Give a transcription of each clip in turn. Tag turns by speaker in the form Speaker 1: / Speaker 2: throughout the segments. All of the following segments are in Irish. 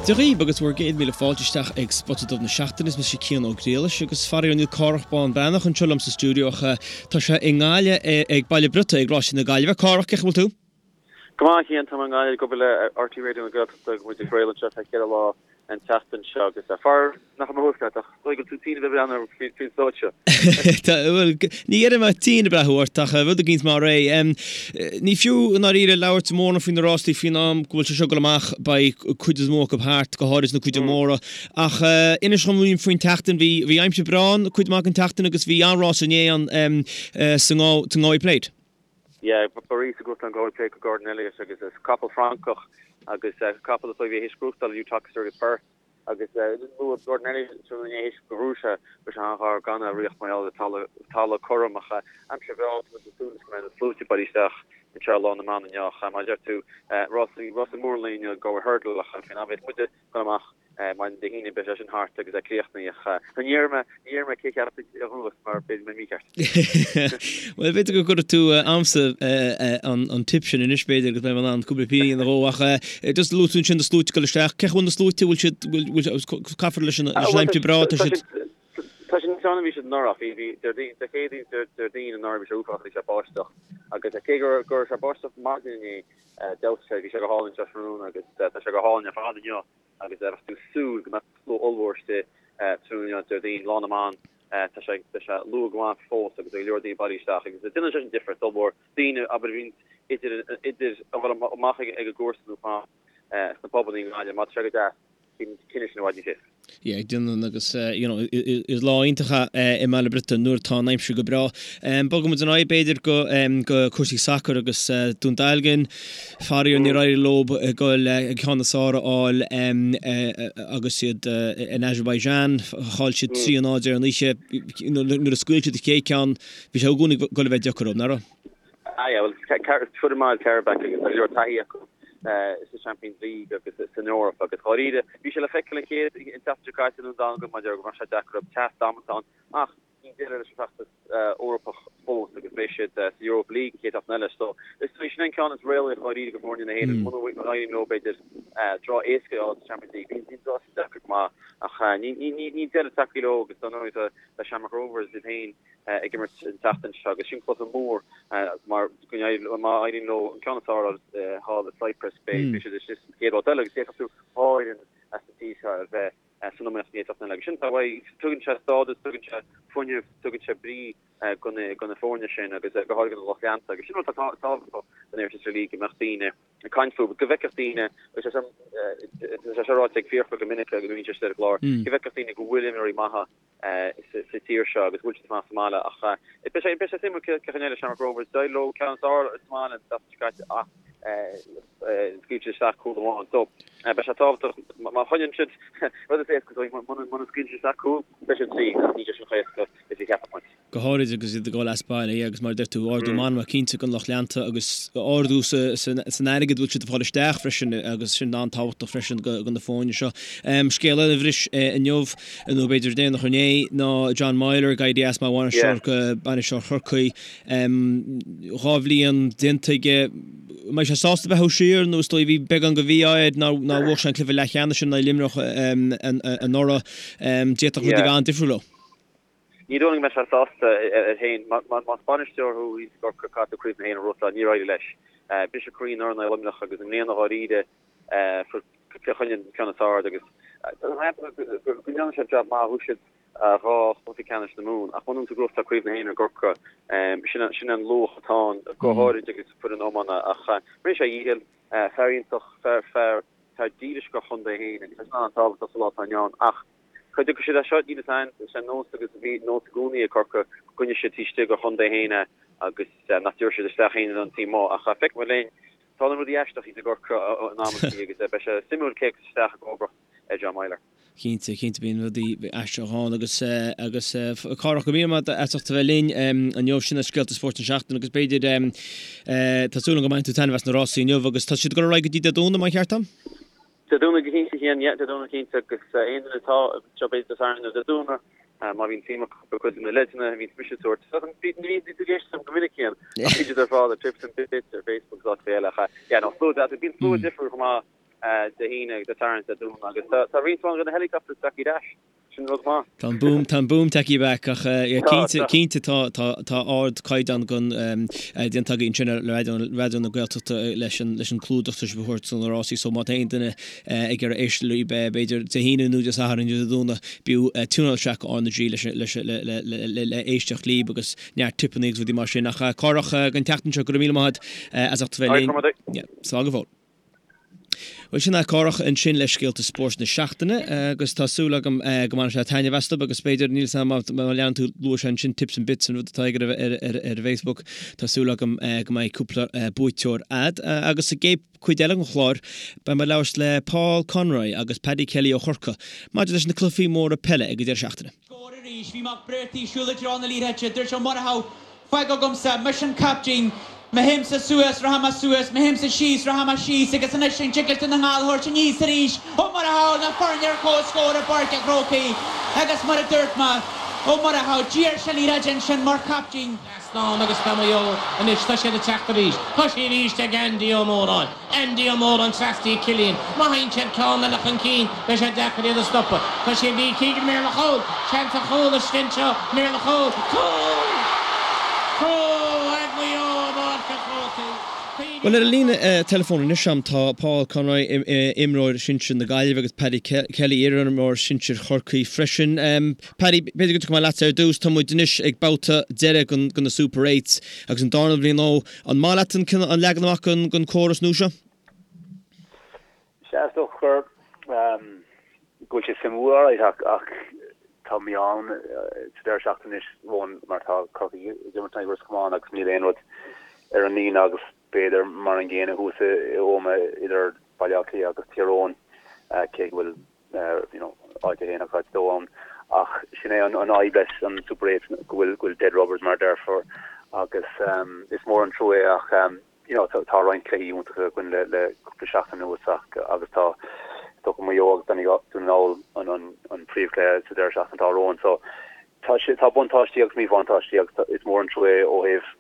Speaker 1: Dia dhaoibh agus bhur gcéad míle fáilte isteach ag Spota Dubh na Seachtaine. Is mise Cian Ó Griallais agus faraor níl Cárthach Bán Breathnach anseo liom sa stiúideo ach tá sé i nGaillimh ag Baile Briotaí ag Rásaí na Gaillimhe. Cárthach, cén chaoi a bhfuil tú?
Speaker 2: Go maith, a Chian, tá mé i nGaillimh ag obair le RTÉ Raidió na Gaeltachta agus muid ag craoladh anseo ar feadh cheithre lá an tseachtain seo agus faraor nach bhfuil mé thuas leat ach is dóigh go bhfuil tú tinn a bheith ag breathnú orm faoin stáitse.
Speaker 1: Tá, bhuel, ní dhéarfaidh mé tinn ag breathnú ort ach rud éicint mar é. Ní fiú i ndáiríre labhairt mórán faoi na rástaí faoin am go bhfuil sé seo ag dul amach, beidh cuid is mó acu thart, go háirid na cuid móra. Ach inis dom faoin tseachtain, bhí, bhí aimsir breá ann cuid maith den tseachtain agus bhí an-rás inné ann sa nGalway Plate.
Speaker 2: Yeah, ba rás a ghnóthaigh an Galway Plate do Gordon Elliott agus is capall Francach agus capall is dóigh a bhí théis gnóthachtáil Uttoxeter agus Perth agus luaigh Gordon Elliott tráthnóna inné théis gur bhuaigh sé go raibh sé an-ghar gan a riocht mar gheall ar talamh talamh cothrom ach aimsir bhreá tá muid ag súil go mbeidh na sluaite bailithe isteach anseo ar Lá na mBan inniu ach mar a deir tú rásaí rásaí mór an lae inniu Galway Hurdle ach faoin am a bheas muide ag dul amach Maidin Dé hAoine beidh sé sin thart agus é críochnaithe ach ní déarfaidh mé, ní déarfaidh mé cé cheap a ghnóthas mar b'fhéidir go mbeidh mícheart.
Speaker 1: Bhuel b'fhéidir go gcuirfidh tú a'msa an tip sin anois b'fhéidir agus beidh mé in ann cúpla pingin a dhó ach just luaigh tú ansin na sluaite ag dul isteach, cén chaoi a bhfuil na sluaite, bhfuil siad, bhfuil, caithfear leis an aimsir breá, tá siad.
Speaker 2: Tá siad níos fearr ná bhí siad anuraidh, bhí, bhí, Déardaoin, Dé Céadaoin, Déardaoin anuraidh bhí sé uafásach, bhí sé báisteach agus cé go raibh sé báisteach maidin inné, D'fheabhsaigh sé, bhí sé go hálainn anseo tráthnóna agus tá sé go hálainn ar fad inniu agus bheadh tú ag súil go mbeadh slua ollmhór istigh tráthnóna inniu, Déardaoin, Lá na mBan, tá sé tá sé luath go maith fós agus tá go leor daoine bailithe isteach agus déanann sé sin difríocht ollmhór, daoine abair a bhíonn idir idir a dhul amach ag a gcúrsa nó fán sna pubanna i nGaillimh, má tá sé go deas. Bíonn cinneadh sin i bhfad níos éasca.
Speaker 1: Yeah, déanann agus you know is lá iontach é i mBaile Briotaí nuair atá an aimsir go breá. Bogfaidh muid ar aghaidh b'fhéidir go go cúrsaí sacair agus Dún Dealgan, faraor níor éirigh leo goil an ceann is fearr a fháil agus iad in Azerbaijan. Chaill siad 3-0 ar an oíche. Nuair a scaoil siad an chéad ceann, bhí sé i gcónaí ag goil a bheith deacair dóibh, nach raibh?
Speaker 2: Ah yeah, bhuel, foireann mhaith Qarabag agus tá go leor taithí acu sa Champions League agus san Eoraip agus dháiríre, bhí sé le feiceáil an chéad, an tseachtain seo caite i nDún Dealgan maidir go raibh sé deacair orthu, teas damanta ann ach níl deireadh leis an bhfeachtas Eorpach fós agus beidh siad sa Europa League an chéad seachtain eile so is dóigh sin an ceann is réalaíoch dháiríre do fhoirne na hÉireann muna n-éiríonn leo b'fhéidir draw éasca a fháil sa Champions League, bíonn bíonn draw sin deacair go maith ach ní ní ní níl deireadh tagtha leo agus dar ndóigh tá Shamrock Rovers iad féin ag imirt an tseachtain seo agus sin cluiche mór mar go má éiríonn leo an ceann is fearr a fháil thall i Cyprus beidh siad istigh sa chéad bhabhta eile agus d'fhéadfadh tú dhá fhoireann as an tír seo a bheith san iomaíocht an chéad seachtain eile agus sin tá uaidh tugann sé stádas, tugann sé fuinneamh, tugann sé brí do na do na foirne sin agus go háirithe do na lucht leanta agus sin rud atá tábhachtach don Irish League go mbeadh daoine ag caint fúthu, go bhfeicfeadh daoine, agus tá sé seo ráite ag Fiachra go minic nuair a bhíonn sé istigh ar an gclár, go bhfeicfeadh daoine go bhfuil imreoirí maithe sa tír seo agus go bhfuil siad ag fanacht sa mbaile ach beidh sé beidh sé suimiúil cén chaoi a n-éireoidh le Shamrock Rovers. D'éirigh leo ceann is fearr sa mbaile an tseachtain seo caite ach scaoil siad isteach cúl amháin. So beidh sé tábhachtach má choinníonn siad rud is éasca dóibh muna scaoileann siad isteach cúl beidh siad tríd ach níl sé sin chomh héasca is a cheapfadh muid.
Speaker 1: go háirid agus iad ag dul as baile, yeah, agus mar a deir tú, ardú meanma cinnte don lucht leanta agus ardú san airgead a bhfuil siad ag fáil isteach freisin agus sin an-tábhachtach freisin do na foirne seo. Scéal eile a bhris inniu, nó b'fhéidir déanach inné, ná John Meyler ag éirí as mar bhainisteoir bainisteoir Chorcaí. 2 bhliain déanta aige. An mbeidh sé sásta beathú siar nó is dóigh bhí beagán de mhí-ádh air nár bhuaigh sé an cluiche leathcheannais sin in aghaidh Luimneach anuraidh. D'fhéadfadh rudaí a bheith an-difriúil leo.
Speaker 2: Ní dóigh liom go mbeidh sé sásta air féin. Más bainisteoir thú thíos i gCorcaigh caithfidh tú Craobh na hÉireann a ghnóthachtáil. Níor éirigh leis. Briseadh croí anuraidh in aghaidh Luimneach agus i mbliana dháiríre fuair Cill Chainnigh an ceann is fearr agus go ndearna sé jab maith. Bhuaigh siad 2 chluiche ceannais na Mumhan ach muna bhfuil tú ag gnóthachtáil Craobh na hÉireann i gCorcaigh, sin an luach atá ann, go háirid agus foireann iomána. Ach rinne sé a dhícheall, fear iontach, fear dílis dá chontae féin agus tá sin an-tábhachtach sa lá atá inniu ann. Ach Cá dtiocfaidh siad as seo, níl a fhios againn. Is é nós agus bhí nós i gcónaí ag Corcaigh go gcoinneoidh siad taobh istigh de chontae féin é agus nach dtabharfaidh siad isteach éinne don taobh amuigh. Ach feicfidh muid linn. Tarlaíonn rudaí aisteach thíos i gCorcaigh in amantaí agus beidh sé suimiúil cé a thiocfas isteach i gcomharbacht ar John Meyler.
Speaker 1: Cinnte, cinnte bíonn rudaí aisteach ann agus agus Cárthach, go raibh míle maith agat as ucht a bheith linn inniu. Sin iad scéalta spóirt na seachtaine agus b'fhéidir tá súil agam go mbainfidh tú taitneamh as na rásaí inniu agus tá siad ag dul ar aghaidh go dtí Dé Domhnaigh, más ceart dom?
Speaker 2: Dé Domhnaigh go cinnte, a Chiain, yeah, Dé Domhnaigh cinnte agus aon duine atá anseo b'fhéidir Dé Sathairn nó Dé Domhnaigh má bhíonn suim acu i gcuid de na leideanna a bhíonns mise ag tabhairt. Ní bhíonn tú ag éisteacht liom go minic Cian ach bíonn siad ar fáil ar Tips and Bits ar Facebook agus áiteacha eile ach yeah no slua deas bíonn slua difriúil chomh maith. Dé hAoine, Dé Sathairn, Dé Domhnaigh agus tá roinnt mhaith de na helicopters tagtha ar ais. Sin rud maith.
Speaker 1: Tá an boom, tá an boom tagtha back ach cinnte, cinnte tá, tá, tá ardchaighdeán gon, déanta agaibh ansin ar Raidió, Raidió na Gaeltachta leis an, leis an clúdach atá sibh a thabhairt do na rásaí so má tá aon duine ag iarraidh éisteacht libh b'fhéidir Dé hAoine nó Dé Sathairn nó Dé Domhnaigh b'fhiú tiúnáil isteach go R na G leis, leis, le, le, le, le éisteacht libh agus neart tipeanna agus rudaí mar sin ach Cárthach don tseachtain seo go raibh míle maith agat as ucht a bheith linn. Slán go fóill. Bhuel, sin é Cárthach ansin le scéalta spóirt na seachtaine agus tá súil agam go mbainfidh sé taitneamh astu agus b'fhéidir, níl 'fhios a'm má leanann tú, luaigh sé ansin Tips and Bits an rud atá aige ar ar Facebook, tá súil agam go mbeidh cúpla buaiteoir a'd. Agus sa gcéad cuid eile den chlár beidh mé ag labhairt le Paul Conroy agus Paddy Kelly ó Chorcaigh maidir leis na cluichí móra peile ag an deireadh seachtaine.
Speaker 3: Scór arís. Bhí Mac Briartaigh ag siúl i dtreo na liathróide. Dúirt Ó Murchú, Fág agamsa, mise an captaen. Má théimse suas, rachaidh mé suas, má théimse síos, rachaidh mé síos agus anois an dtig leis Dún na nGall a thabhairt aníos arís? Ó Murchú, na foirne ar comhscór i bPáirc an Chrócaigh agus mar a dúirt mé, Ó Murchú, d'iarr sé an liathróid ansin mar chaptaen.
Speaker 4: Trasnán agus tá Maigh Eo anois, tá siad ag teacht arís. Tá sí arís ag Andy Ó Móráin. Andy Ó Móráin trasna go Cillian. Má théann siad ceann eile chun cinn, beidh sé deacair iad a stopadh. Tá sí ag Lee Keegan, méar le chúl! Seans ar chúl istigh anseo, méar le chúl! Cúl! Cúl ag Maigh Eo i bPáirc an Chrócaigh.
Speaker 1: Bhuel, ar an líne teileafóin anois agam tá Paul Conroy, imreoir sinsir na Gaillimhe agus Paddy Kelly, iarimreoir sinsir Chorcaí freisin. Paddy, b'fhéidir go dtiocfaidh mé leatsa ar dtús. Tá muid anois ag babhta deiridh de na Super Eights agus an darna bhliain ó. An maith leat an an leagan amach den córas nua seo?
Speaker 5: Sea, is dócha gur go bhfuil sé suimiúil alright ach ach tá mí-ádh sa deireadh seachtaine anois romhainn mar tá Corcaigh ag imirt in aghaidh Ros Comáin agus níl aon rud ar an líne agus b'fhéidir mar an gcéanna thuas i Ómaigh idir Baile Átha Cliath agus Tír Eoghain cé go bhfuil you know, áit a haon agus áit a dó ann. Ach sin é an fhadhb leis an Super 8 go bhfuil go bhfuil dead rubbers mar a déarfá agus um, is mór an trua é ach um, you know, tá, tá roinnt cluichí iontacha againn le, le cúpla seachtain anuas ach agus tá tá Maigh Eo agus Dún na nGall an, an, an príomhchluiche sa deireadh seachtaine atá romhainn. So tá sé tá buntáistí agus míbhuntáistí agus tá, is mór an trua é ó thaobh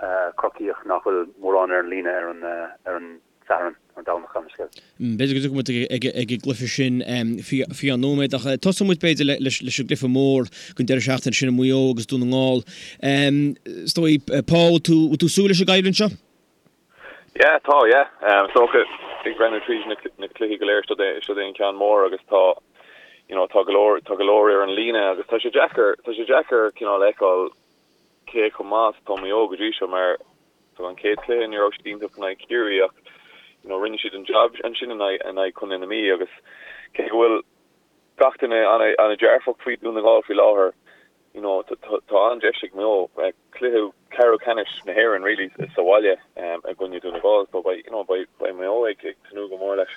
Speaker 5: uh, Corcaíoch nach bhfuil mórán ar an líne ar an, uh, ar an Satharn, an Domhnach gan
Speaker 1: scéal. B'fhéidir go dtiocfaidh muid ag an gcluiche sin faoi cheann nóiméad ach tosóidh muid b'fhéidir leis an gcluiche mór den deireadh seachtaine sin Maigh Eo agus Dún na nGall. Is dóigh, Paul, bhfuil tú ag súil leis an gcoimhlint seo?
Speaker 6: Yeah, tá, yeah. Is dócha ag breathnú tríd na cluichí go léir, seo é an ceann mór agus tá, you know, tá go leor, tá go leor ar an líne agus tá sé deacair, tá sé deacair cineál a fheiceáil cé chomh maith is atá Maigh Eo go dtí seo mar so an chéad chluiche ní raibh siad iontach in aghaidh Chiarraí ach you know rinne siad an job ansin in aghaidh in aghaidh Chontae na Mí agus cé go bhfuil gach duine an-dearfach faoi Dún na nGall faoi láthair you know tá an-deis ag Maigh Eo cluiche ceathrú ceannais na hÉireann really sa bhaile i gcoinne Dún na nGall so beidh you know beidh Maigh Eo ag tnúth go mór leis.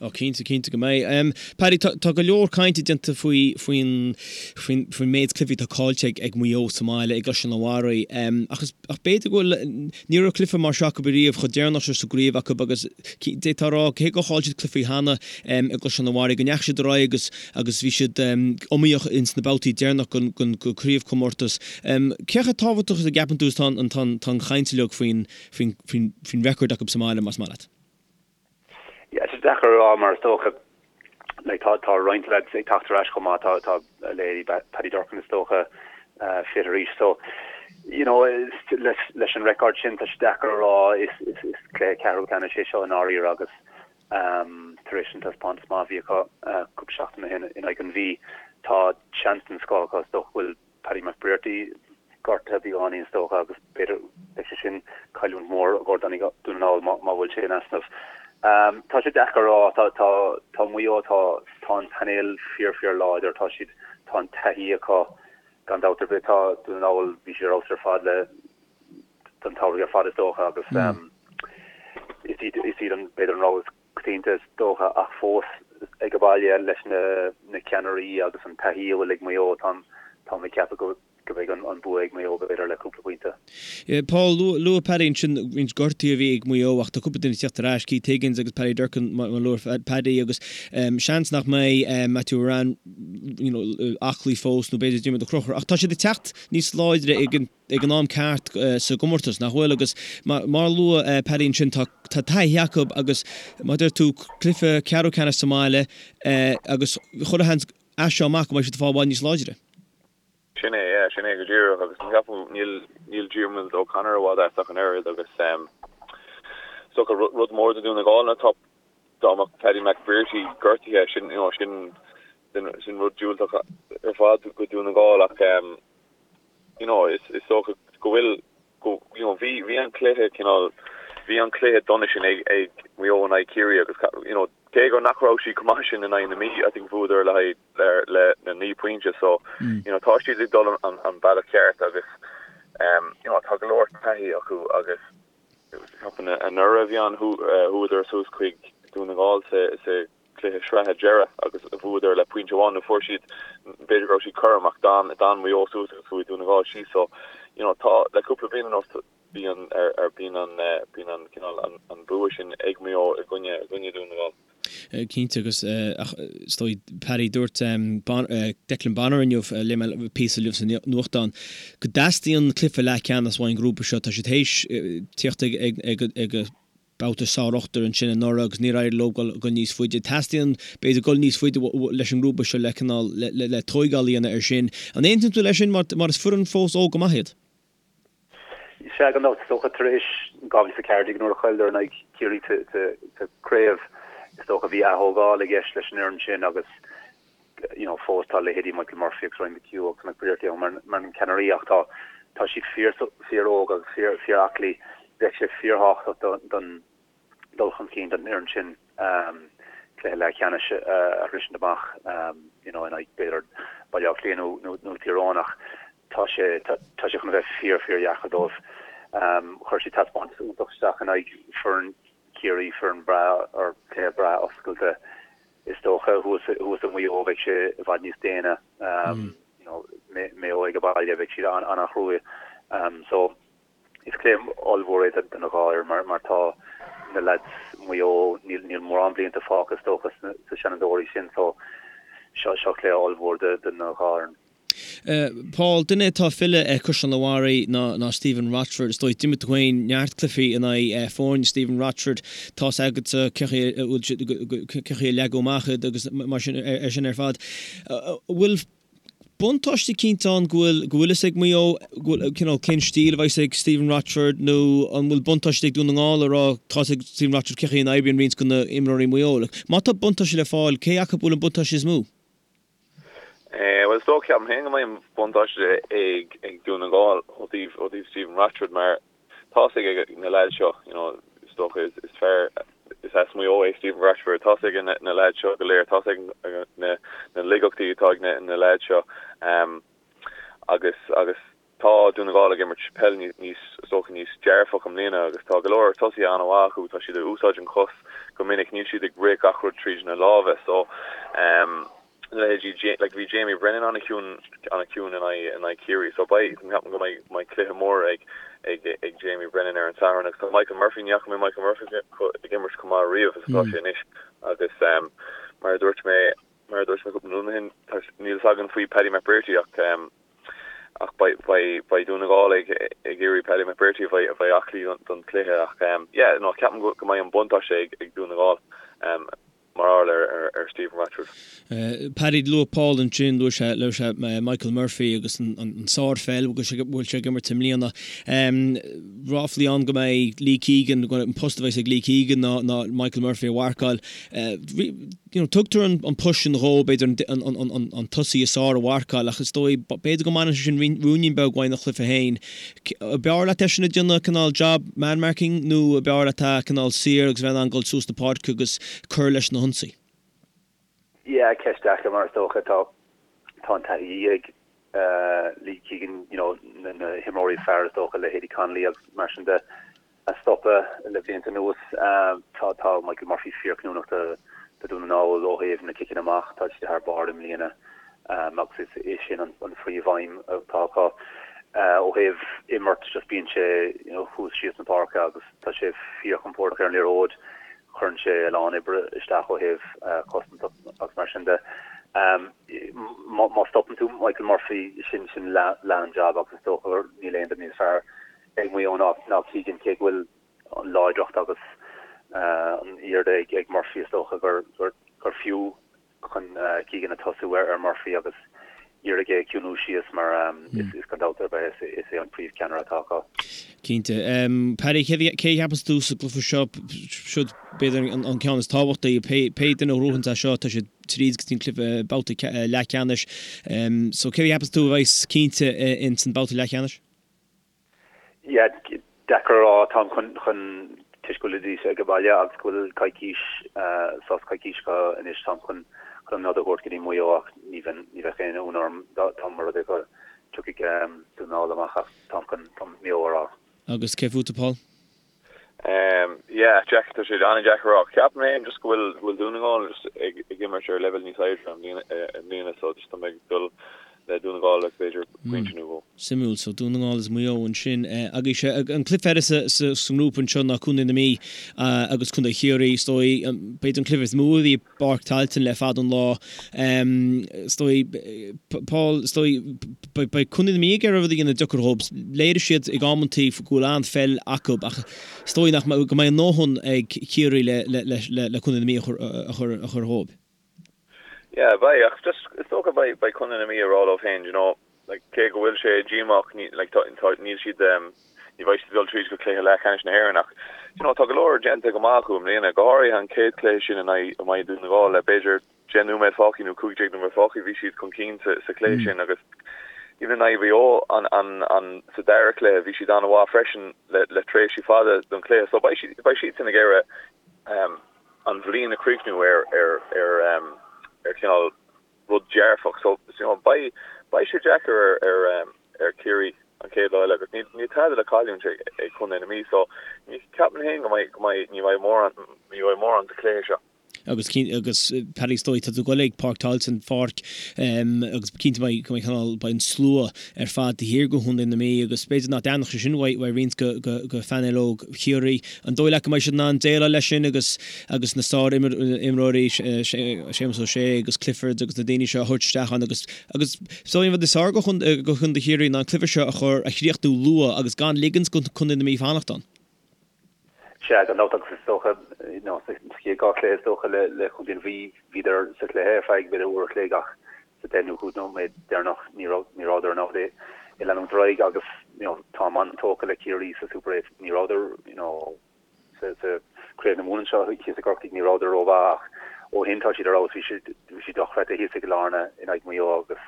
Speaker 1: Ó cinnte, cinnte go mbeidh. Paddy, tá, tá go leor cainte déanta faoi, faoin, faoin, faoin méid cluichí atá caillte ag, ag Maigh Eo sa mbaile i gCaisleán an Bharraigh. Ach is, ach b'fhéidir go bhfuil, ní raibh cluiche mar seo acu ariamh chomh deireanach seo sa gcraobh acu agus d'fhéadfá a rá, cé gur chaill siad cluichí cheana i gCaisleán an Bharraigh, go ndeachaigh siad ar aghaidh agus, agus bhí siad iomaíoch ins na babhtaí deireanach den, den, den chraobhchomórtas. Cé chomh tábhachtach is a gceapann tú is tá an, tá an, tá an chaint uilig faoin, faoin, faoin, faoin record acu sa mbaile, más maith leat?
Speaker 5: Yeah, tá sé deacair a rá mar is dócha like tá tá roinnt lads ag teacht ar ais chomh maith, tá tá leithéidí Paddy Durcan is dócha fit arís so you know leis leis an record sin tá sé deacair a rá is is is cluiche ceathrú ceannais é seo i ndáiríre agus um tar éis an taispeántas maith a bhí acu cúpla seachtain ó shin in aghaidh an Mhí tá seans den scoth acu is dócha go bhfuil Paddy McBrearty gortaithe beagáinín is dócha agus b'fhéidir beidh sé sin cailliúint mhór i gcomhair Dún na nGall má bhfuil sé in easnamh. Tá sé deacair a rá, tá tá tá Maigh Eo tá tá an painéal fíor fíor láidir, tá siad tá an taithí acu gan dabht ar bith, tá Dún na nGall bhí siad ar fheabhas ar fad le don tsamhradh ar fad is dócha agus is iad is iad an b'fhéidir an rogha is coitianta is dócha, ach fós ag baile leis na ceannairí agus an taithí a bhfuil ag Maigh Eo, táim ag ceapadh go mbeidh an bua ag Maigh Eo b'fhéidir le cúpla pointe.
Speaker 1: Paul, luaigh Paddy ansin roinnt gortuithe a bhí ag Maigh Eo ach tá cúpla duine ag teacht ar ais, Keith Higgins agus Paddy Durcan mar a luaigh Paddy agus seans nach mbeidh Matthew Ruane. you know aclaí fós nó b'fhéidir Diarmuid Ó Conchúir ach tá siad ag teacht níos láidre ag an ag an am ceart sa gcomórtas, nach bhfuil? Agus mar a luaigh Paddy ansin, tá taithí acu agus mar a deir tú, cluiche ceathrú ceannais sa mbaile agus chuile sheans as seo amach go mbeidh siad ag fáil i bhfad níos láidre.
Speaker 6: Sin é, yeah, sin é go díreach agus ceapaim níl níl Diarmuid O'Connor i bhfad as ach an oiread agus is dócha rud mór do Dún na nGall ná tá dá mbeadh Paddy McBrearty gortaithe sin you know sin sin rud diúltach ar fad go Dún na nGall ach you know is is dócha go bhfuil go you know bhí bhí an cluiche cineál bhí an cluiche dona sin ag ag Maigh Eo in aghaidh Ciarraí agus you know cé gur nach raibh siad chomh maith sin in aghaidh na Mí I think bhuadar le haghaidh le le na 9 pointe so you know tá siad ag dul an an bealach ceart agus um you know tá go leor taithí acu agus ceapaim anuraidh a bhí ann chuadar suas chuig Dún na nGall sa sa cluiche sraithe deireadh agus bhuadar le pointe amháin nó fuair siad, b'fhéidir go raibh siad cothrom ach d'fhan, d'fhan Maigh Eo suas agus chuaigh Dún na nGall síos so you know tá, le cúpla bliain anuas bíonn ar, ar, bíonn an, bíonn an cineál an, an bua sin ag Maigh Eo i gcoinne, i gcoinne Dún na nGall.
Speaker 1: Cinnte agus ach is dóigh Paddy dúirt Declan Bonner inniu, léigh mé píosa inniu sa nuachtán, go dteastaíonn cluiche leathcheannais uaidh an grúpa seo, tá siad théis tíocht ag, ag, ag, ag, babhta sár-ochtar ansin anuraidh agus níor éirigh leo dul níos faide. Teastaíonn, b'fhéidir, dul níos faide leis an ngrúpa seo le cineál, le tóigeáil a dhéanamh air sin. An aontaíonn tú leis sin mar mar is foireann fós óg go maith iad?
Speaker 5: Sea, gan dabht. Is dócha tar éis 2014 nuair a chailleadar in aghaidh Chiarraí sa chraobh, is dócha bhí ath-thógáil i gceist leis an fhoireann sin agus you know fós tá leithéidí Michael Murphy agus Ryan McHugh agus McBrearty ann mar mar na ceannairí ach tá tá siad fíor fíor óg agus fíor fíor aclaí. Bheadh sé fíorthábhachtach don don dul chun cinn don fhoireann sin um cluiche leathcheannais a a shroisint amach um you know in aghaidh b'fhéidir Baile Átha Cliath nó nó nó Tír Eoghain ach tá sé tá tá sé chun a bheith fíor fíor dheacair dóibh. Um chuir siad taispeántas iontach isteach in aghaidh foireann Chiarraí, foireann breá or cluiche breá oscailte. Is dócha thuas thuas i Maigh Eo bheidh sé i bhfad níos déine. You know, Maigh Eo ag baile bheidh siad an-an-chruaidh. So is cluiche ollmhór é do na dhá fhoireann mar mar tá na lads Maigh Eo níl níl mórán blianta fágtha is dócha sna sa Seanadóirí sin so seo seo cluiche ollmhór do do na dhá fhoireann.
Speaker 1: Paul, duine atá ag filleadh ar Chaisleán an Bharraigh ná Stephen Rochford. Is dóigh, d'imir tú féin neart cluichí in aghaidh foirne Stephen Rochford. Tá's agatsa cén chaoi a bhfuil siad, cén chaoi a leagadh amach iad agus mar sin ar sin ar fad. An bhfuil buntáiste eicínt ann go bhfuil go bhfuil fhios ag Maigh Eo go bhfuil cineál cén stíl a bheas ag Stephen Rochford nó an bhfuil buntáiste ag Dún na nGall a rá tá's ag Stephen Rochford cén chaoi a n-oibríonn roinnt de na imreoirí Maigh Eo. Má tá buntáiste le fáil, cé acu a bhfuil an buntáiste is mó?
Speaker 6: Bhuel, is dócha, ceapaim féin go mbeidh an buntáiste ag ag Dún na nGall ó thaobh ó thaobh Stephen Rochford mar tá's ag na leaids seo, you know, is dócha is is fear is as Maigh Eo é Stephen Rochford, tá's ag na na leaids seo go léir, tá's ag na na laigeachtaí atá ag na na leaids seo agus agus Tá Dún na nGall ag imirt peil níos, is dócha, níos dearfach i mbliana agus tá go leor tosaithe an-mhaith acu. Tá siad ag úsáid an chos go minic, níl siad ag rith gach rud tríd na lámha. So, leithéidí, like bhí Jamie Brennan an-chiúin, an-chiúin in aghaidh, in aghaidh Ciarraí. So beidh, ceapaim go mbeidh, mbeidh cluiche mór ag, ag, ag Jamie Brennan ar an Satharn agus tá Michael Murphy, ní fhaca mé Michael Murphy ag imirt chomh maith riamh is atá sé anois agus mar a dúirt mé, mar a dúirt mé cúpla nóiméad ó shin, tá, níl fhios againn faoi Paddy McBrearty ach, Ach beidh Dún na nGall ag iarraidh Paddy McBrearty a bheith aclaí don chluiche ach yeah no ceapaim go mbeidh an buntáiste ag Dún na nGall mar gheall ar Stephen Rochford.
Speaker 1: Paddy, luaigh Paul ansin, luaigh sé, luaigh sé Michael Murphy agus an sárpheil a bhfuil sé ag imirt i mbliana. Ráflaí ann go mbeidh Lee Keegan, an post a bheas ag Lee Keegan ná Michael Murphy a mharcáil. You know, tugtar an post sin dhó, b'fhéidir an tosaí is fearr a mharcáil ach is dóigh, b'fhéidir go mbaineann sé sin ruainnín beag uaidh ina chluiche féin. B'fhearr leat eisean ag déanamh cineál job man marking nó b'fhearr leat é cineál saor agus bheith in ann dul suas na páirce agus cur leis na hionsaí?
Speaker 5: Yeah, ceist deacair mar is dócha tá tá an taithí ag Lee Keegan, you know, na himreoirí is fearr is dócha, leithéidí Connolly agus mar sin de. a stopadh le blianta anuas. Tá tá Michael Murphy fíorchinniúnach do Dhún na nGall ó thaobh na ciceanna amach, tá siad thar barr i mbliana agus is é sin an phríomhaidhm atá acu. Ó thaobh imirt just bíonn sé you know thuas síos na páirce agus tá sé fíorchompordach ar an liathróid, cuireann sé a lán oibre isteach ó thaobh cosaint agus mar sin de. Michael Murphy, sin sin leath an jab agus is dócha gur níl aon duine níos fearr ag Maigh Eo ná ná Keegan cé go bhfuil an láidreacht agus an airde ag ag Murphy is dócha gur gur gur fiú chun Keegan a tosú ar Murphy agus iarraidh é a chiúnú síos mar is gan dabht ar bith is é an príomhcheannaire atá acu.
Speaker 1: Cinnte. Paddy, cé a cheapas tú sa gcluiche seo, siod b'fhéidir an ceann is tábhachtaí, pé duine a ghnóthaíonn é seo, tá siad tríd go dtí an cluiche babhta leathcheannais. So cé a cheapas tú a bheas cinnte ins an babhta leathcheannais?
Speaker 5: Yeah, deacair a rá. Táim chun, chun, toisc go bhfuilidís ag baile agus go bhfuil coicís, sos coicís acu anois, táim chun, chun an nod a thabhairt go dtí Maigh Eo ach ní bheinn, ní bheadh aon ionadh orm dá, dá mba rud é go dtiocfaidh Dún na nGall amach ach táim chun, chun Maigh Eo a rá.
Speaker 1: Agus cé fútsa Paul?
Speaker 6: Um, yeah, Jack, tá sé an-deacair a rá. Ceapaim féin just go bhfuil, go bhfuil Dún na nGall just ag, ag imirt ar leibhéal níos airde i mbliana, i mbliana so just tá mé ag dul le Dún na nGall le b'fhéidir pointe nó dhó.
Speaker 1: Suimiúil, so Dún na nGall is Maigh Eo ansin. Agus an cluiche eile sa, sa, sa ngrúpa anseo ná Contae na Mí agus Contae Chiarraí. Is dóigh, b'fhéidir an cluiche is mó a bhí i bPáirc Tailteann le fada an lá. Is dóigh, Paul, is dóigh, beidh Contae na Mí ag iarraidh rud a dhéanamh deacair dhóibh. Léirigh siad ag amantaí go bhfuil an-pheil acu ach is dóigh nach mbeidh, go mbeidh a ndóthain ag Ciarraí le, le, le, le Contae na Mí a chur, a chur, a chur dhóibh.
Speaker 6: Yeah, beidh, ach just, is dócha beidh, beidh Contae na Mí ag rá leo féin, you know, like, cé go bhfuil sé díomách, ní, like, tá, tá, níl siad, um, ní bheidh siad ag dul tríd go cluiche leathcheannais na hÉireann ach, you know, tá go leor déanta go maith acu i mbliana, go háirithe an chéad chluiche sin in aghaidh, in aghaidh Dún na nGall le b'fhéidir 10 nóiméad fágtha nó 15 nóiméad fágtha, bhí siad chun cinn sa, sa chluiche sin agus even in aghaidh Mhaigh Eo an, an, an, sa dara cluiche bhí siad an-mhaith freisin le, le tréimhsí fada don chluiche so beidh siad, beidh siadsan ag iarraidh, um, an bhliain a chríochnú ar, ar, ar, um, ar chineál rud dearfach. So, you know, beidh, beidh sé deacair ar, ar, um, ar Chiarraí an chéad lá eile agus níl, níl tada le cailliúint ag, ag Contae na Mí. So, ní ceapaim féin go mbeidh, go mbeidh, ní bheidh mórán, ní bheidh mórán sa chluiche seo.
Speaker 1: Agus cinn, agus Paddy is dóigh, tá tú ag goil ag Páirc Tailteann, pháirc, agus cinnte beidh, go mbeidh cineál, beidh an slua ar fad taobh thiar de Chontae na Mí agus b'fhéidir nach dtaitneodh sé sin uaidh, uaidh roinnt de, de, de phainéal óg Chiarraí. An dóigh leat go mbeidh siad in ann déileáil leis sin agus agus na sár-imreoirí, Séamus Ó Sé agus Clifford agus na daoine seo a thabhairt isteach ann agus agus is dóigh an rud is fearr do Chontae Chiarraí ná an cluiche seo a chur a chríochnú luath agus gan ligint do Chontae na Mí fanacht ann.
Speaker 5: Sea, gan dabht agus is dócha, you know, sa chéad dhá chluiche is dócha le le Contae na Mí bhíodar sa chluiche ar feadh b'fhéidir uair a chloig ach sa deich nó chúig nóiméad deireanach ní raibh ní rabhadar in ann é a leanúint ar aghaidh agus you know táim an-tógtha le Ciarraí sa Super 8 ní rabhadar you know sa sa Craobh na Mumhan anseo thíos i gCorcaigh ní rabhadar rómhaith ach ó shin tá siad ar fheabhas bhí siad bhí siad dochreidte thíos i gCill Airne in aghaidh Mhaigh Eo agus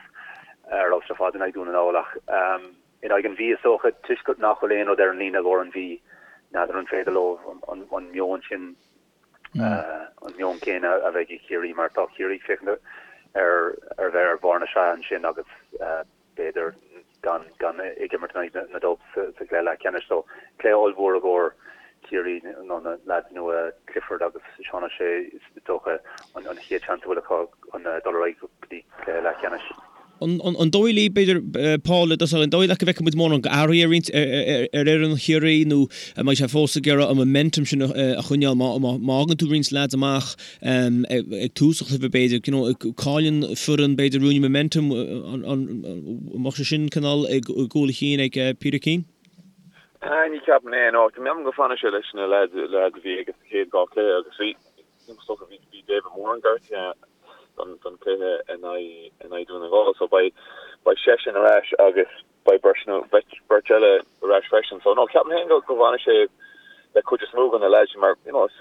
Speaker 5: ar fheabhas ar fad in aghaidh Dún na nGall ach um, in aghaidh an Mhí is dócha toisc nach bhfuil aon rud ar an líne i gcomhair an Mhí n'fheadar an féidir leo an, an, an meon sin an meon céanna a bheidh ag Ciarraí mar tá Ciarraí ag féachaint ar ar bheith ar bharr na sraithe ansin agus b'fhéidir gan gan ag imirt in aghaidh na Dubs sa gcluiche leathcheannais. So cluiche ollmhór i gcomhair Ciarraí nó na leaids nua Clifford agus Seán O'Shea is dócha an chéad seans a bhfuil acu chun dul ar aghaidh go dtí cluiche leathcheannais.
Speaker 1: An dóigh leat, b'fhéidir, Paul, i dtosach, an dóigh leat go bhfeicfidh muid mórán athruithe ar roinnt ar fhoireann Chiarraí nó an mbeidh sé fós ag iarraidh an momentum sin a choinneáil má fhágann tú roinnt leaids amach ag tús an chluiche b'fhéidir, you know, cailleann foireann b'fhéidir ruainne momentum, an mbeadh sé sin cineál i gcúl a chinn ag Peter Keane?
Speaker 6: Ní cheapaim é, no. Ceapaim go bhfanfaidh sé leis na leaids a bhí aige sa chéad dhá chluiche agus bhí Is dócha bhí bhí David Moran gortaithe don don chluiche in aghaidh in aghaidh Dún na nGall so beidh beidh seisean ar ais agus beidh beirt nó beirt beirt eile ar ais freisin. So no ceapaim féin go go bhfanfaidh sé le cuid is mó de na lads mar you know is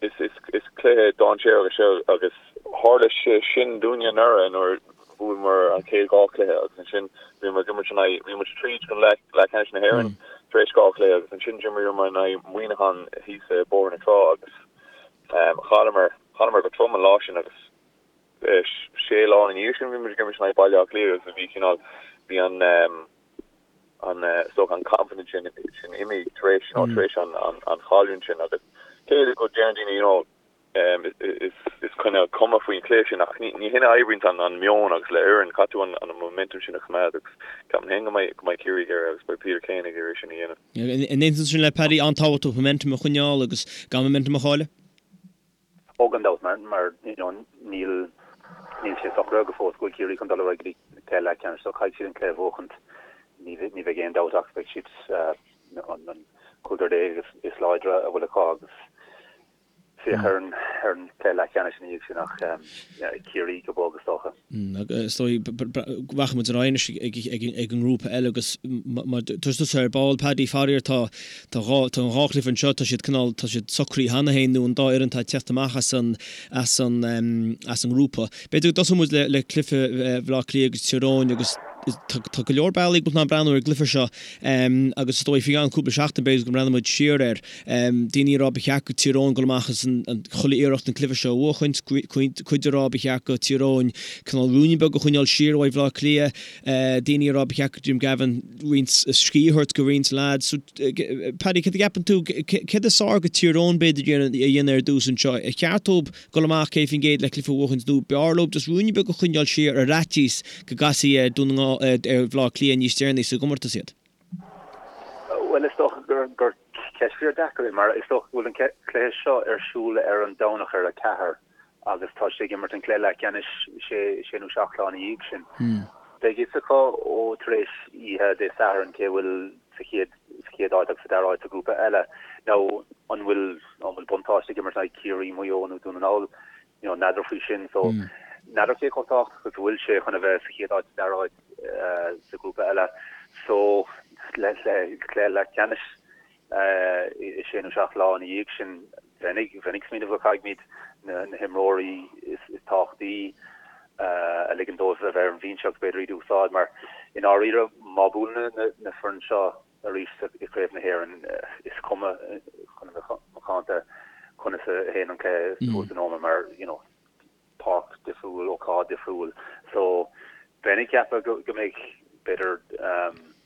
Speaker 6: is is is cluiche dainséarach é seo agus tharla sé sin dúinne anuraidh nuair bhuamar an chéad dhá chluiche agus ansin bhíomar ag imirt in aghaidh bhí muid tríd go leath leathcheannais na hÉireann tar éis dhá chluiche agus ansin d'imríomar in aghaidh Muineachán thíos i Bóthar na Trá agus Chailleamar, chailleamar go trom an lá sin agus sé lá ina dhiaidh sin bhí muid ag imirt in aghaidh Baile Átha Cliath agus bhí cineál, bhí an, an, is dócha an confidence sin, sin imithe tar éis, you know, tar éis an, an, an chailliúint sin agus cé go deireann daoine, you know, is, is cineál cuma faoin chluiche sin ach ní, ní hin a oibríonn an, an meon agus le foireann, caithfidh tú an, an momentum sin a choimeád agus ceapaim féin go mbeidh, go mbeidh Ciarraí ag iarraidh agus beidh Peter Keane ag iarraidh sin a dhéanamh.
Speaker 1: An aontaíonn tú sin le Paddy, an-tábhachtach momentum a choinneáil agus gan momentum a chailleadh?
Speaker 5: Ó gan dabht, mar you know níl. Níl sé socraithe go fóill go bhfuil Ciarraí chun dul ar aghaidh go dtí cluiche leathcheannais so caithfidh siad an cluiche a bhuachaint. Ní bheidh aon dabht ach beidh siad an 15 is is láidre a bhfuil acu agus féach ar an ar an cluiche leathcheannais ina dhiaidh sin ach Ciarraí go bog is dócha.
Speaker 1: Is dóigh rachaidh muid ar aghaidh anois ag an ngrúpa eile agus mar dúirt tusa ar ball Paddy faraor tá tá an dhá chluiche anseo tá siad cineál tá siad socraithe cheana féin nó an dá fhoireann atá ag teacht amach as an as an as an ngrúpa. B'fhéidir go dtosóidh muid le le cluiche Bhaile Átha Cliath agus Tír Eoghain agus tá go leor bealaí go bhfuil tú in ann breathnú ar an gcluiche seo agus is dóigh faoi cheann cúpla seachtain b'fhéidir go mbreathnóidh muid siar air. Daoine ag rá ba cheart go Tír Eoghain dul amach agus an chuile iarracht an cluiche seo a bhuachaint, cuid ag rá ba cheart go Tír Eoghain cineál ruainne beag a choinneáil siar uaidh Bhaile Átha Cliath, daoine ag rá ba cheart go Jim Gavin roinnt scíth a thabhairt go roinnt lads. So, Paddy, céard a cheapann tú, céard is fearr go Tír Eoghain b'fhéidir a dhéanamh ar dtús anseo? Ar cheart dóibh dul amach 100% le cluiche a bhuachaint nó b'fhearr leo just ruainne beag a choinneáil siar ar fhaitíos go gcasfaí ar Dún na nGall, ar Bhaile Átha Cliath níos deireanaí sa gcomórtas iad?
Speaker 5: Bhuel, is dócha gur gur ceist fíor deacair é mar is dócha go bhfuil an cluiche seo ar siúl ar an Domhnach ar a 4 agus tá siad ag imirt an cluiche leathcheannais sé sé nó seacht lá ina dhiaidh sin. Beidh fhios acu ó tar éis oíche Dé Sathairn cé bhfuil sa chéad sa chéad áit agus sa dara áit sa ghrúpa eile. Now an bhfuil an bhfuil buntáiste ag imirt in aghaidh Ciarraí, Maigh Eo nó Dún na nGall? You know, n'fheadar faoi sin. So n'fheadar cé chomh tábhachtach is a bhfuil sé chun a bheith sa chéad áit sa dara áit sa ghrúpa eile. So le le cluiche leathcheannais i sé nó seacht lá ina dhiaidh sin bheinn ag bheinn ag smaoineamh go gcaithfimid na na himreoirí is is tábhachtaí a ligean dóibh a bheith ar an bhinse agus b'fhéidir iad a úsáid mar i ndáiríre má buaileann na na foireann seo arís i gCraobh na hÉireann is cuma chun a bheith macánta conas a théann an cluiche thuas in Ómaigh mar you know páirc difriúil, ócáid difriúil so bheinn ag ceapadh go go mbeidh b'fhéidir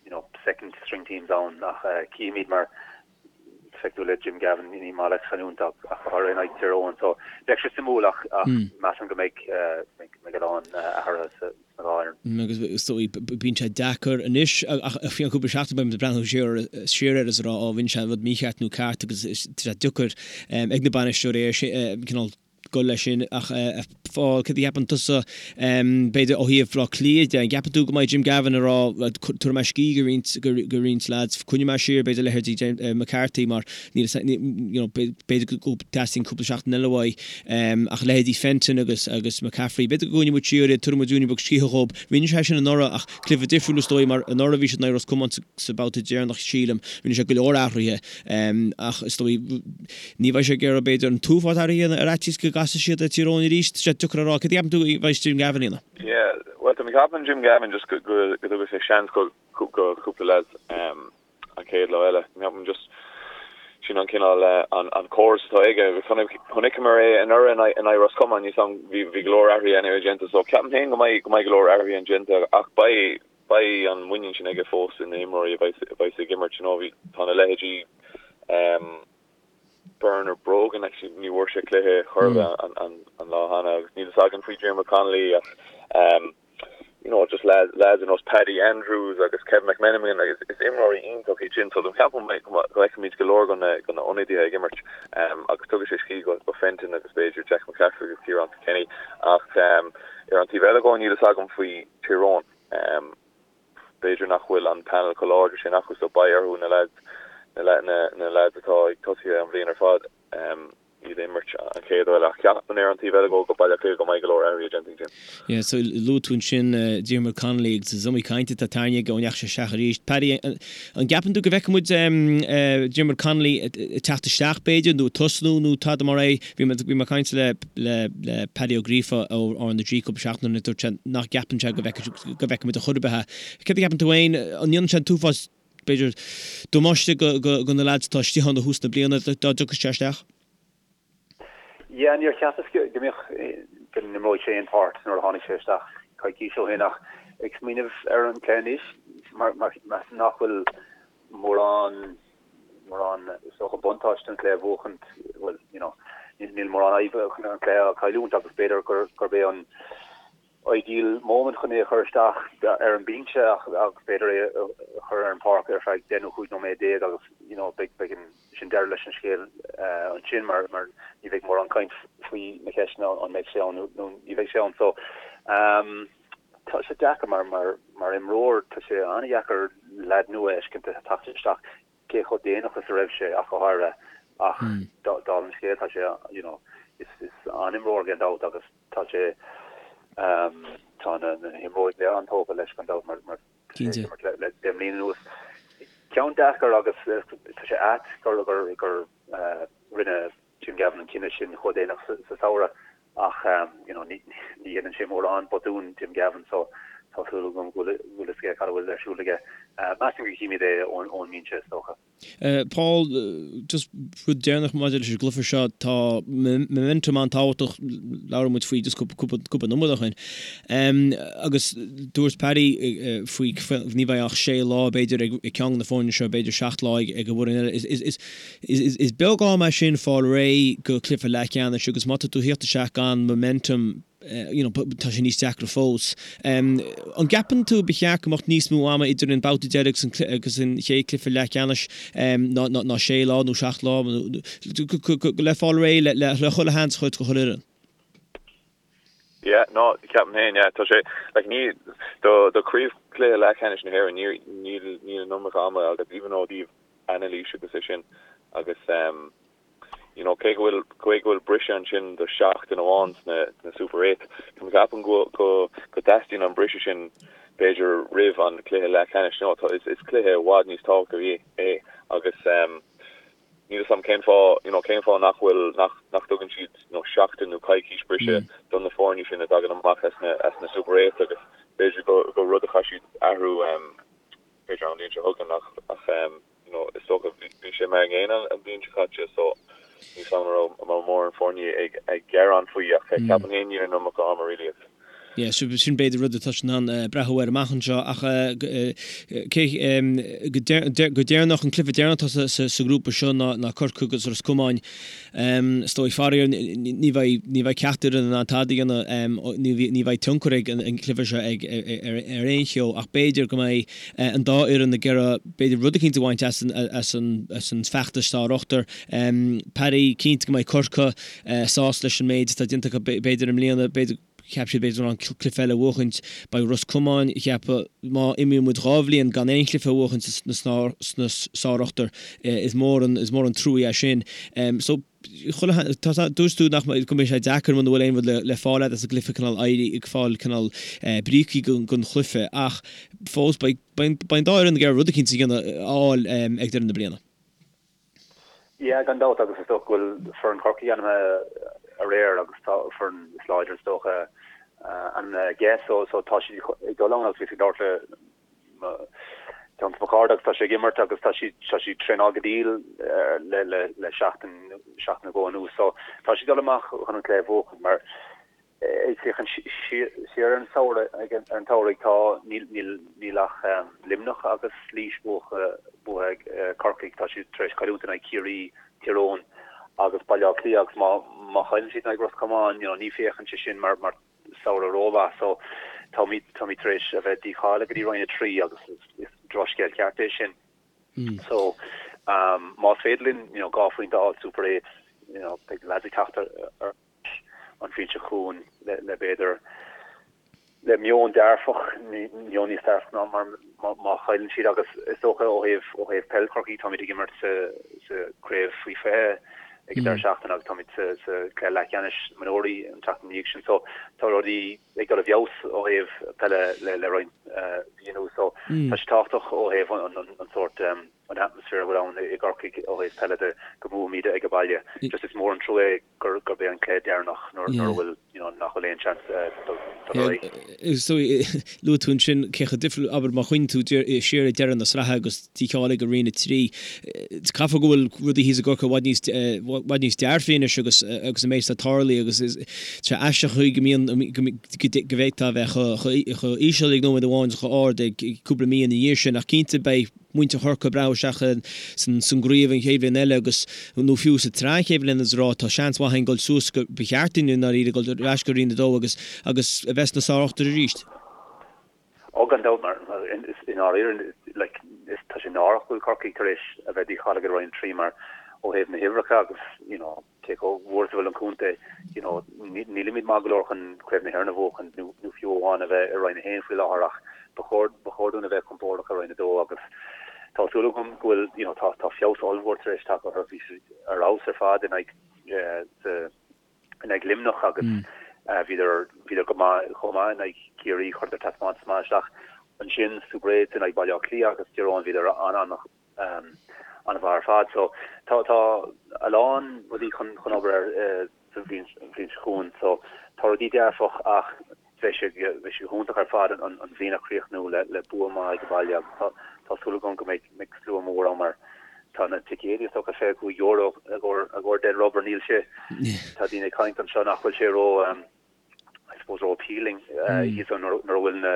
Speaker 5: you know second string teams ann ach cífimid mar feictear le Jim Gavin ní maith leis cailliúint ach go háirithe in aghaidh Tír Eoghain so bheadh sé suimiúil ach ach measaim go mbeidh mbeidh a lán athruithe sna dhá
Speaker 1: fhoireann. Agus is dóigh bíonn sé deacair anois ach faoi cheann cúpla seachtain beidh muid ag breathnú siar siar air is ag rá ó rinne sé rud mícheart nó ceart agus tá sé deacair ag na bainisteoirí é cineál dul leis sin ach a Phóil, céard a cheapann tusa, b'fhéidir ó thaobh Bhaile Átha Cliath de, an gceapann tú go mbeidh Jim Gavin ag rá tabharfaidh mé scíth go roinnt, go roinnt lads, coinneoidh mé siar b'fhéidir leithéidí McCarthy mar níl a you know b'fhéidir go dteastaíonn cúpla seachtain eile uaidh ach leithéidí Fenton agus agus McCaffrey, b'fhéidir go gcoinneoidh muid siar iad, tabharfaidh muid ruainne beag scíthe dhóibh. Rinne sé sin anuraidh ach cluiche difriúil is dóigh mar anuraidh bhí siad in aghaidh Ros Comáin sa babhta deireanach sílim, rinne sé go leor athruithe ach is dóigh Ní bheidh sé ag iarraidh, b'fhéidir, an t-uafás athruithe a dhéanamh ar fhaitíos go gcasfaidh siad ar Tír Eoghain arís. Tá sé deacair a rá. Céard a cheapann tú a bheidh Jim Gavin a dhéanamh?
Speaker 6: Yeah, bhuel, tá mé ag ceapadh Jim Gavin just go go dtabharfaidh sé seans go go cúpla lads an chéad lá eile. Ceapaim just sin an cineál an an córas atá aige agus chonaiceamar é anuraidh in aghaidh in aghaidh Ros Comáin níl a fhios agam bhí bhí go leor athruithe anyway déanta so ceapaim féin go mbeidh go mbeidh go leor athruithe déanta ach beidh beidh an muinín sin aige fós ina imreoirí a bheidh a bheidh ag imirt you know bhí tá na leithéidí Bernard Brogan actually ní bhfuair sé cluiche chor ar bith an an an lá cheana agus níl fhios againn faoi Diarmuid Connolly ach you know just lads lads ar nós Paddy Andrews agus Kevin McMenamin agus is imreoirí iontach iad sin so do cheapaim go bhfeicfimid go leor go na go na ionadaithe ag imirt agus tugadh sé scíth go go Fenton agus b'fhéidir Jack McCaffrey agus Ciarán Kilkenny ach ar an taobh eile dhó níl fhios agam faoi Tír Eoghain. B'fhéidir nach bhfuil an panel chomh láidir sin acu so beidh orthu na lads na lads atá ag tosaithe an bhliain ar fad iad a imirt an chéad uair ach ceapaim ar an taobh eile go go Baile Átha Cliath go mbeidh go leor athruithe déanta ag Jim.
Speaker 1: Yeah, so luaigh tú ansin Diarmuid Connolly agus is iomaí caint atá tarraingthe aige ó ndeachaigh sé isteach arís. Paddy, an gceapann tú go bhfeicfidh muid Diarmuid Connolly ag teacht isteach b'fhéidir nó ag tosnú nó tada mar é? Bhí mé ag caint le le Paddy Ó Gríofa ó R na G cúpla seachtain ó shin dúirt sé nach gceapann sé go bhfeicfidh muid ar chor ar bith é. Céard a cheapann tú féin? An ndéanann sé an t-uafás, b'fhéidir, damáiste go na leaids atá istigh ann ó thús na bliana dá dtiocfadh sé isteach?
Speaker 5: Yeah, níor cheapas go mbeadh, go n-imreoidh sé aon pháirt nuair a tháinig sé isteach coicís ó shin ach ag smaoineamh ar an cluiche anois mar measaim nach bhfuil mórán, mórán is dócha buntáiste an cluiche a bhuachaint, bhuel, you know, níl mórán fadhb chun an cluiche a chailliúint agus b'fhéidir gur, gurb é an ideal moment chun é a chur isteach ar an binse ach, agus b'fhéidir é a chur ar an pháirc ar feadh 10 nó 15 nóiméad agus, you know, beidh, beidh an, sin deireadh leis an scéal ansin mar, mar ní bheidh mórán caint faoi na ceisteanna an mbeidh sé ann nó ní bheidh sé ann. So. Tá sé deacair mar mar mar imreoir tá sé an-dheacair leaid nua a fheiscint ag teacht isteach cé chomh déanach is a raibh sé ach go háirithe ach dála an scéil tá sé you know is is an-imreoir gan dabht agus tá sé tá na na himreoirí go léir an-tógtha leis gan dabht mar mar tá sé ag imirt le le 10 mbliana anuas. Ceann deacair agus tá sé ait gur gur gur rinne Jim Gavin an cinneadh sin chomh déanach sa samhradh ach you know ní dhéanann sé mórán botún Jim Gavin so tá súil agam go bhfuil a fhios aige cad a bhfuil ar siúl aige. Measaim go gcífimid é ón mbinse is dócha.
Speaker 1: Paul, just rud deireanach maidir leis an gcluiche seo, tá momentum an-tábhachtach, labhair muid faoi just cúpla nóiméad ó shin. Agus dúirt Paddy faoi ní bheidh ach sé lá b'fhéidir ag ceann de na foirne seo, b'fhéidir seacht lá ag an bhfoireann eile. Is Is beag am é sin fáil réidh go cluiche leathcheannais agus má tá tú thíocht isteach gan momentum you know tá sé níos deacra fós. An gceapann tú ba cheart go mbeadh níos mó ama idir an babhta deiridh agus an chéad cluiche leathcheannais ná sé lá nó seacht lá le fáil réidh le chuile sheans a thabhairt do chuile fhoireann?
Speaker 6: Yeah, no, ceapaim féin, yeah, tá sé, like, ní, do, do chraobhchluiche leathcheannais na hÉireann, ní, níl, níl an iomarca ama agus even ó thaobh anailís agus é sin, agus um, you know, cé go bhfuil, cé go bhfuil briseadh ansin do sheachtain amháin sna, sna Super 8, ceapaim go, go, go dteastaíonn an briseadh sin b'fhéidir roimh an cluiche leathcheannais, you know, tá, is, is cluiche i bhfad níos tábhachtaí é agus um, Níl 'fhios a'm cén fáth, you know, cén fáth nach bhfuil, nach, nach dtugann siad, you know, seachtain nó coicís briseadh do na foirne sin a dtagann amach as na, as na Super 8 agus b'fhéidir go, go rud a chaithfidh siad athrú, em, b'fhéidir an bhliain seo chugainn ach, ach, em, you know, is dócha bhí, bhí sé mar an gcéanna an bhliain seo caite so níl 'fhios a'm an raibh, an raibh mórán foirne ag, ag gearán faoi ach ceapaim féin níl an iomarca ama really agus.
Speaker 1: Yeah, sin b'fhéidir rud atá in ann breathnú air amach anseo ach cé go deireanach, an cluiche deireanach atá sa ghrúpa seo ná Corcaigh agus Ros Comáin. Is dóigh faraor ní bheidh ní bheidh ceachtar in ann tada a dhéanamh, ní bheidh tionchar ag an gcluiche seo ag ar aon cheo ach b'fhéidir go mbeidh an dá fhoireann ag iarraidh b'fhéidir rud eicínt a bhaint as an bhfeachtas sár-ochtar. Paddy, cinnte go mbeidh Corcaigh sásta leis an méid atá déanta acu b'fhéidir i mbliana, b'fhéidir, cheap siad b'fhéidir go raibh an cluiche eile a bhuachaint. Beidh Ros Comáin ag ceapadh má imíonn muid 2 bhliain gan aon chluiche a bhuachaint sna sár-ochtar is mór an is mór an trua é sin. So chuile tá dúirt tú nach go mbeidh sé deacair muna bhfuil aon rud le le fáil agat as an gcluiche cineál éirí ag fáil cineál brící don chluiche ach fós beidh beidh an dá fhoireann ag iarraidh rud eicínt a dhéanamh a fháil ag deireadh na bliana.
Speaker 5: Yeah, gan dabht, agus is dócha go bhfuil foireann Chorcaí ainmnithe aréir agus tá foireann is láidre is dócha ainmnithe aige so so tá siad ag dul ann agus bhíos ag labhairt le ceann de mo chairde agus tá sé ag imirt agus tá siad tá siad traenáil go diail le le le seachtain seachtain nó dhó anuas so tá siad ag dul amach chun an cluiche a bhuachan mar Ag féachaint siar ar an samhradh, ar an tsamhraidh, tá, níl, níl, níl ach Luimneach agus Laois buaithe ag Corcaigh. Tá siad tar éis cailliúint in aghaidh Ciarraí, Tír Eoghain agus Baile Átha Cliath agus má, má chailleann siad in aghaidh Ros Comáin, you know, ní féachann sé sin mar, mar samhradh rómhaith. So táimid, táimid tar éis a bheith dícháilithe go dtí Roinn 3 agus is, is drochscéal ceart é sin. So más féidir linn, you know, 2 phointe a fháil Super 8, you know, beidh na lads ag teacht ar, ar, an bhliain seo chugainn le b'fhéidir le meon dearfach, meon níos dearfach ná mar má chailleann siad agus is dócha ó thaobh ó thaobh peil Chorcaí táimid ag imirt sa sa craobh faoi 20 ag an deireadh seachtaine agus táimid sa sa cluiche leathcheannais mionúirí an tseachtain ina dhiaidh sin so tá rudaí ag dul i bhfeabhas ó thaobh peile le le roinnt mhí anuas so tá sé tábhachtach ó thaobh an an an sórt an atmaisféar a bhfuil ann i gCorcaigh ó thaobh peile de go mbuafaimid ag an baile. Just is mór an trua é gurb é an cluiche deireanach nuair a bhfuil, you know, nach bhfuil aon seans dul ar aghaidh.
Speaker 1: Is dóigh, luaigh tú ansin cé chomh difriúil, abair má chuimhníonn tú siar ag deireadh na sraithe agus dícháilithe go Roinn 3, caithfidh go bhfuil rudaí thíos i gCorcaigh i bhfad níos, i bhfad níos dearfaí anois agus agus an méid atá tarlaithe agus is sé aisteach an chaoi go mbíonn, go bhféadfá a bheith chomh íseal ag nóiméad amháin is chomh ard ag cúpla mí ina dhiaidh sin ach cinnte beidh muintir Chorcaí ag breathnú isteach san gcraobh an chéad bhliain eile agus, nó fiú sa tsraith an chéad bhliain agus a rá tá seans mhaith againn dul suas go, ba cheart dúinn i ndáiríre dul ar ais go Roinn 2 agus, agus a bheith sna sár-ochtar arís.
Speaker 5: Ó gan dabht mar i ndáiríre like is tá sé náireach go bhfuil Corcaigh tar éis a bheith dícháilithe go Roinn 3 mar ó thaobh na huimhreacha agus you know. cé chomh mhór is a bhfuil an contae, you know, nílimid maith go leor chun Craobh na hÉireann a bhuachan nó nó fiú amháin a bheith i Roinn 1 faoi láthair ach ba chóir ba chóir dúinn a bheith compordach i Roinn 2 agus tá súil agam go bhfuil, you know, tá tá feabhas ollmhór tar éis teacht orthu, bhí siad ar fheabhas ar fad in aghaidh sa in aghaidh Luimneach agus bhíodar bhíodar go maith chomh maith in aghaidh Ciarraí, chuireadar taispeántas maith isteach ansin sna Super Eights in aghaidh Baile Átha Cliath agus Tír Eoghain bhíodar an-an an-mhaith ar fad. So tá tá a lán rudaí chun chun obair ar sa bhliain bhliain seo chugainn. So tá rudaí dearfach ach bheadh sé bheadh sé go hiontach ar fad an an bhliain a chríochnú le le bua maith ag baile agus tá tá súil agam go mbeidh mbeidh slua mór ann mar tá na ticéidí is dócha €25 i gcomhair i gcomhair dead rubber níl sé tá daoine ag caint anseo nach bhfuil sé ró I suppose ró appealing thíos ann nuair a bhfuil na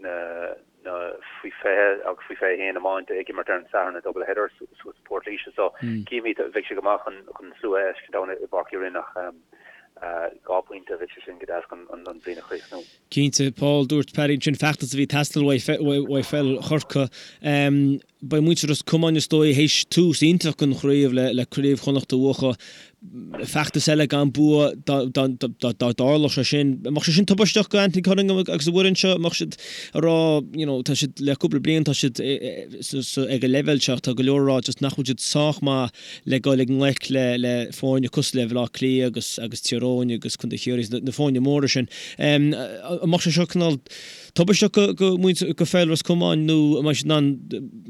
Speaker 5: na na faoi 20 agus faoi 21 iomáint ag imirt ar an Satharn i double header suas i Port Laoise so cífimid bheadh sé go maith chun chun slua a fheiscint ann i bPáirc Uí Rinn ach 2 phointe bheadh sé sin go deas chun an bhliain a chríochnú.
Speaker 1: Cinnte, Paul, dúirt Paddy ansin feachtas a bhí ag teastáil uaidh pheil Chorcaí. Beidh muintir Ros Comáin is dóigh théis tús iontach den chraobh le Craobh Chonnacht a bhuachan. Feachtas eile gan bua dá dtarlódh sé sin. An mbeadh sé sin tubaisteach do Anthony Cunningham agus a bhfoireann seo? An mbeadh siad ag rá you know tá siad le cúpla bliain tá siad ag an leibhéal seo tá go leor ag rá just nach bhfuil siad sách maith le dul i ngleic le le foirne cosúil le Bhaile Átha Cliath agus agus Tír Eoghain agus Contae Chiarraí na foirne móra sin. An mbeadh sé seo cineál Tubaisteach do mhuintir do pheil Ros Comáin nó an mbeidh siad in ann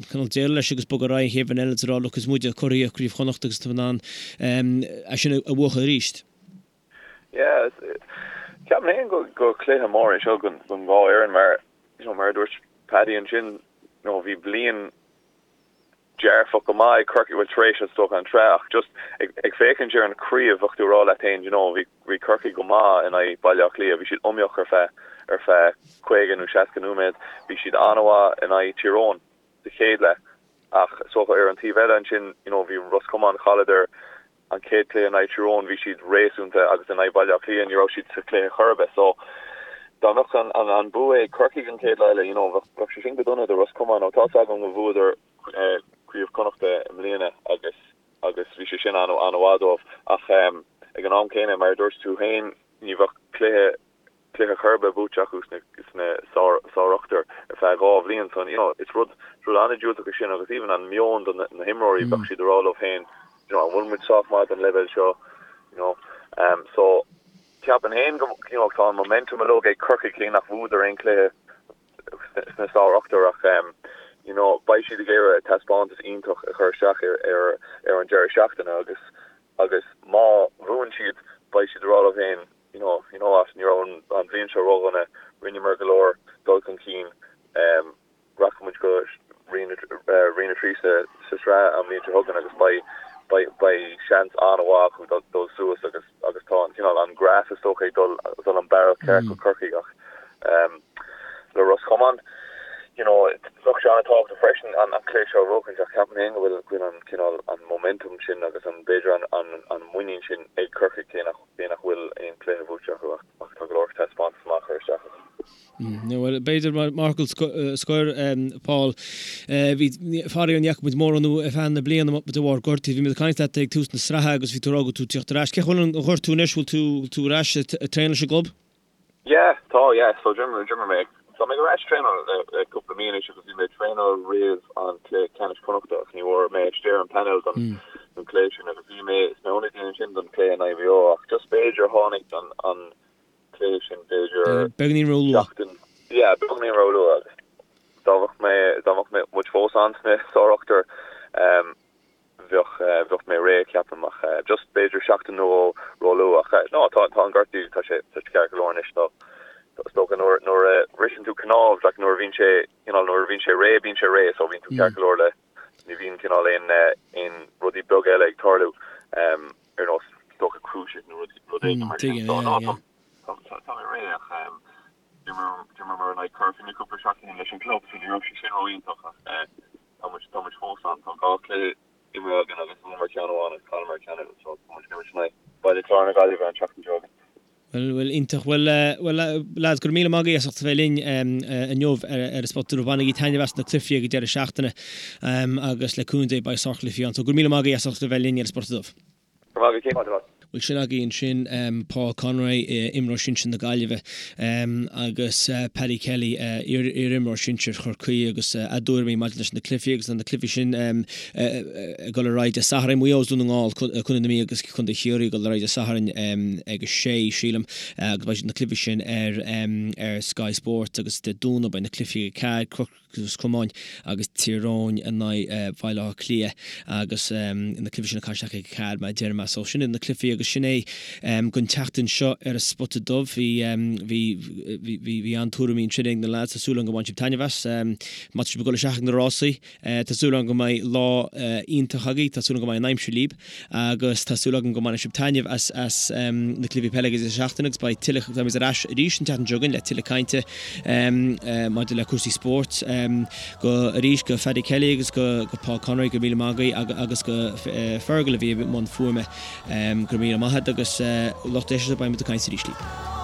Speaker 1: cineál déileáil leis agus bogadh ar aghaidh an chéad bhliain eile is a rá look is muide curaidh Chraobh Chonnacht agus tá in ann é sin a bhuachan arís.
Speaker 6: Yeah, ceapaim féin go go cluiche mór é seo don dhá fhoireann mar you know mar a dúirt Paddy ansin you know bhí bliain dearfach go maith ag Corcaigh, bhuel tar éis is dócha an tsraith ach just ag ag féachaint ar an chraobh bheadh tú ag rá leat féin you know bhí bhí Corcaigh go maith in aghaidh Baile Átha Cliath, bhí siad iomaíoch ar feadh ar feadh 50 nó 60 nóiméad, bhí siad an-mhaith in aghaidh Tír Eoghain sa chéad leath ach is dócha ar an taobh eile ansin you know bhí Ros Comáin chailleadar an chéad cluiche in aghaidh Tír Eoghain bhí siad réasúnta agus in aghaidh Baile Átha Cliath ní raibh siad sa chluiche chor ar bith so dá mbeadh an an an bua ag Corcaigh an chéad lá eile you know bheadh bheadh sé sin go dona do Ros Comáin nó tá's agam go bhuadar Craobh Chonnachta i mbliana agus agus bhí sé sin an an-mhaith dóibh ach ag an am céanna mar a dúirt tú féin ní bheadh cluiche cluiche chor ar bith buaite acu sna sna sár sárochtar ar feadh 2 bhliain so you know is rud is rud an-diúltach é sin agus even an meon do na na himreoirí bheadh siad ag rá leo féin you know an bhfuil muid sách maith don leibhéal seo you know um so ceapaim féin go you know tá an momentum uilig ag Corcaigh cé nach bhuadar aon cluiche sna sárochtar ach um you know beidh siad ag iarraidh taispeántas iontach a chur isteach ar ar ar an deireadh seachtaine agus agus má bhuann siad beidh siad ag rá leo féin you know, you know what, ní raibh an bhliain seo ródhona, rinneamar go leor dul chun cinn, rachaidh muid go Roinn 3 sa sraith an bhliain seo chugainn agus beidh, beidh, beidh seans an-mhaith acu dul, dul suas agus, agus tá an cineál, an graf is dócha ag dul, dul an bealach ceart go Corcaigh ach le Ros Comáin, you know, bheadh sé an-tábhachtach freisin an, an cluiche seo a bhuachaint ach ceapaim féin go bhfuil, go bhfuil an cineál, an momentum sin agus an, b'fhéidir an, an, an muinín sin ag Corcaigh cé nach Cé nach bhfuil aon chluiche buaite acu ach tá go leor taispeántas maith curtha isteach acu.
Speaker 1: Bhuel, b'fhéidir mar fhocal scoir, Paul, bhí, faraor ní fhaca muid mórán thú ar feadh na bliana de bharr gortaithe. Bhí muid ag caint leat ag tús na sraithe agus bhí tú ag rá go raibh tú ag tíocht ar ais. Cén chaoi a bhfuil an gortú anois? Bhfuil tú, bhfuil tú ar ais ag traenáil leis an gclub?
Speaker 6: Yeah, tá, yeah. So d'imir, d'imir mé, tá mé ar ais ag traenáil le, le cúpla mí anois agus bhí mé ag traenáil roimh an cluiche ceannais Connachta ach ní raibh mé istigh ar an panel don, don cluiche sin agus bhí mé sna hionadaí ansin don cluiche in aghaidh Mhaigh Eo ach just b'fhéidir tháinig an, an cluiche sin b'fhéidir
Speaker 1: Beagáinín róluath.
Speaker 6: seachtain, yeah, beagáinín róluath agus dá mbeadh mé, dá mbeadh mé, muid fós ann sna sárochtar, um, Bheadh, bheadh mé réidh, ceapaim, ach just b'fhéidir seachtain nó dhó róluath. Ach no, tá, tá an gortú, tá sé, tá sé ceart go leor anois. Tá, is dócha nuair, nuair a bhriseann tú cnámh, like nuair a bhíonn sé, cineál nuair a bhíonn sé réidh, bíonn sé réidh, so bíonn tú ceart go leor le, ní bhíonn cineál aon, aon rudaí beaga eile ag tarlú, ar nós, is dócha cruciate nó rud, rud éigin mar sin. So no, tá, tá, tá mé réidh ach d'imir, d'imreamar in aghaidh Corcaigh cúpla seachtain leis an gclub, so ní raibh sé sin ró-iontach ach Tá muid, tá muid fós ann. Tá 2 chluiche imeartha againn agus bhuamar ceann amháin agus chailleamar ceann eile so tá muid ag imirt in aghaidh Baile Chláir na Gaillimhe an tseachtain seo chugainn.
Speaker 1: Bhuel, bhuel, iontach. Bhuel, bhuel, lads, go raibh míle maith agaibh as ucht a bheith linn inniu ar an Spota Dubh. Bainigí taitneamh as na cluichí ag an deireadh seachtaine agus le cúnamh Dé beidh sárchluichí ann. So go raibh míle maith agaibh as ucht a bheith linn ar an Spota Dubh.
Speaker 6: Go raibh maith agat, Cian.
Speaker 1: Bhuel sin agaibh ansin Paul Conroy, imreoir sinsir na Gaillimhe, agus Paddy Kelly, iar-imreoir sinsir Chorcaí agus a dtuairimí maidir leis na cluichí agus na cluichí sin ag dul ar aghaidh Dé Sathairn. Maigh Eo is Dún na nGall, Contae na Mí agus Contae Chiarraí ag dul ar aghaidh Dé Sathairn ag a sé, sílim, agus beidh na cluichí sin ar Sky Sports agus Dé Domhnaigh beidh na cluichí ag a 4, Ros Comáin agus Tír Eoghain in aghaidh Bhaile Átha Cliath agus na cluichí sin ag caitheamh isteach ag 4 mar a deir mé. So sin iad na cluichí agus sin é don tseachtain seo ar an Spota Dubh. Bhí bhí bhí bhí an-tuairimí ansin ag na lads. Tá súil agam go mbain sibh taitneamh as. Má tá sibh ag dul isteach ag na rásaí, tá súil agam go mbeidh lá iontach agaibh, tá súil agam go mbeidh an aimsir libh agus tá súil agam go mbainfidh sibh taitneamh as as na cluichí peile ag an deireadh seachtaine agus beidh tuilleadh, beimid ar ais arís an tseachtain seo chugainn le tuilleadh cainte maidir le cúrsaí spóirt. Go arís go Phaddy Kelly agus go go Paul Conroy go raibh míle maith agaibh agus go Fergal a bhí i mbun fuaime. Go raibh míle maith agat agus lucht éisteachta beimid ag caint arís libh.